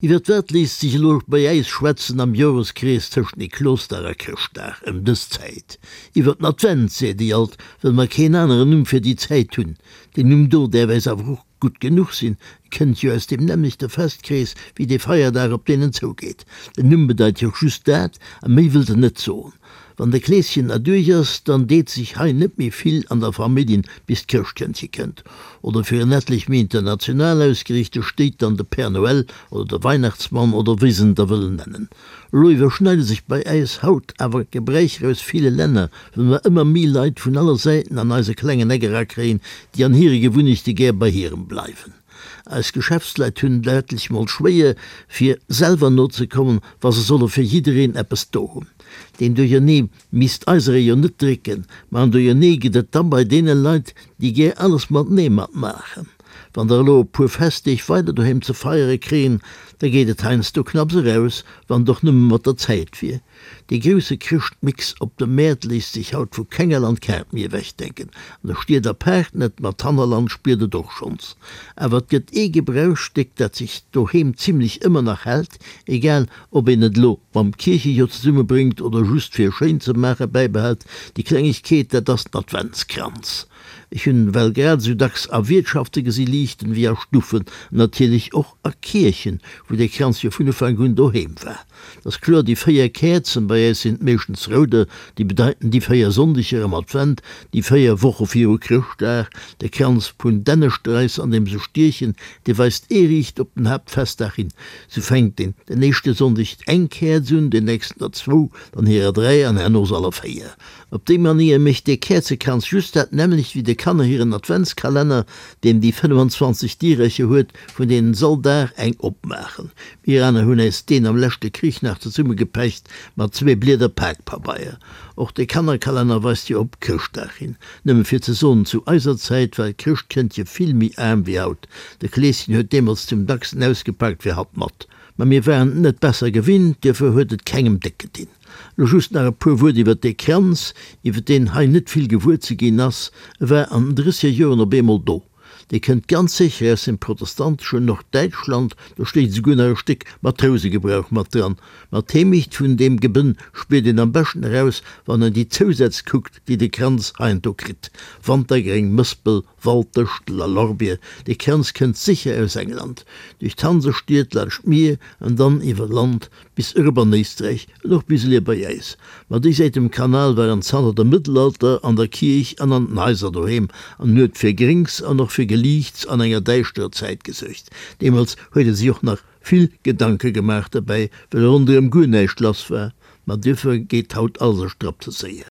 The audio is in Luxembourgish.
Iwwert wat léisst sech elo bei äis schwätzen am Joreskrees tëscht Niklosdag a Chrëschtdag ëm dës Zäit? Iwwert den Advent, seet déi alt, wëll mer keen aneren Numm fir déi Zäit hunn. Deen Numm do däerf äis awer och gutt genuch sinn, e kënnt jo aus deem nämmlechte Festkrees wéi dee Feierdag, op deen en zougeet. Den Numm bedeit jo och just dat, a méi wëllt en net soen. Wann de Kleeschen erduerch ass, dann deet sech hei net méi vill an der Familljen, bis d'Chrëschtkëndche kënnt. Oder fir en etlech méi international ausgeriichte stéit dann de Père Noël oder de Weihnachtsmann oder wéi se en da wëllen nennen. Elo iwwerschneide sech bei äis haut awer Gebräicher aus ville Länner, well mer ëmmer méi Leit vun aller Säiten an eise klengen Eck erakréien, déi an hire Gewunnechte gär bei hirem bleiwen. Eis Geschäftsleit hunn et etlech mol schwéier, fir selwer nozekommen, wa se solle fir jiddereen eppes do hunn. Deen Duerchernee misst eiseree jo net drécken, ma en Duerchernee gëtt et da bei deene Leit, déi gär alles matenee matmaachen. Wann der elo e puer Festdeeg weider doheem ze feiere kréien, da geet et heiansdo knapps eraus, wann et och nëmme mat der Zäit wier. Dee grousse Chrëschtmix op de Mäert léisst sech haut vu kenger Landkaart méi ewechdenken. An de Stied apaart net, ma d'Hannerland spiert et och schonns. Awer et gëtt ee Gebrauchsstéck, dat sech doheem zimlech ëmmer nach hält, egal ob een et elo mam Kierchejoer zesummebréngt oder just fir schéin ze maache bäibehält, déi Klengegkeet, dat ass den Adventskranz. Ech hunn well grad esou dacks a Wiertschafte gesi liichten wéi a Stuffen, an natierlech och a Kierchen, wou dee Kranz jo vun Ufank un doheem war. Et ass kloer, déi 4 Käerzen, bei äis sinn et meeschtens rouder, déi bedeiten déi 4 Sonndeger am Advent, déi 4 Woche viru Chrëschtdag. De Kranz vun Dännestrais, an deem se stiechen, dee weist ee riicht op den Haaptfestdag hin. Sou fänkt een den éischte Sonndeg eng Käerz un, den nächsten der zwou, dann hirer 3 an herno se aller 4. Op déi Manéier mécht dee Käerzekranz just dat nämmlecht wéi de Kanner hiren Adventskalenner, deen déi 25 Dierercher huet, vun deenen s'all Dag eng opmaachen. Mir aner hunn äis deen am leschte Krich nach zesummegepecht mat zwee Blieder Pakpabeier. Och de Kannerkalenner weist jo op Chrëschtdag hin. Nëmme fir ze soen, zu eiser Zäit war d'Chrëschtkëndche vill méi aarm wéi haut. De Kleeschen huet deemools zum dacksten ausgepakt wéi hatt mat. Ma mir waren et net besser gewinnt, duerfir huet et kengem déck gedinn. Lo just nach e puer Wuert iwwert dee Kranz, iwwert deen hei net vill gewuer ze ginn ass. E war an den drësseger Joren op eemol do. Dee kënnt ganz sécher aus dem protestanteschen Norddäitschland, do stéit esouguer nach e Stéck Matrousegebrauch mat dran. Ma d'Heemecht vun deem Gebënn spiert een am beschten eraus, wann een déi Zousätz kuckt, déi de Kranz heiansdo kritt, Wantergréng, Mëspel, Walddëschtel a Lorbier. Dee Kranz kënnt sécher aus England, duerch d'Hansestied, laanscht d'Mier an dann iwwer Land bis erop an Éisträich an och bis elier bei äis. Ma déi Säit um Kanal waren zanter dem Mëttelalter an der Kierch an an den Haiser doheem an huet fir Gréngs an och fir Geliichts an enger däischterer Zäit gesuergt. Deemools huet ee sech och nach vill Gedanke gemaach derbäi, well ronderëm guer näischt lass war. Ma duerfir geet haut alles e Strapp ze séier.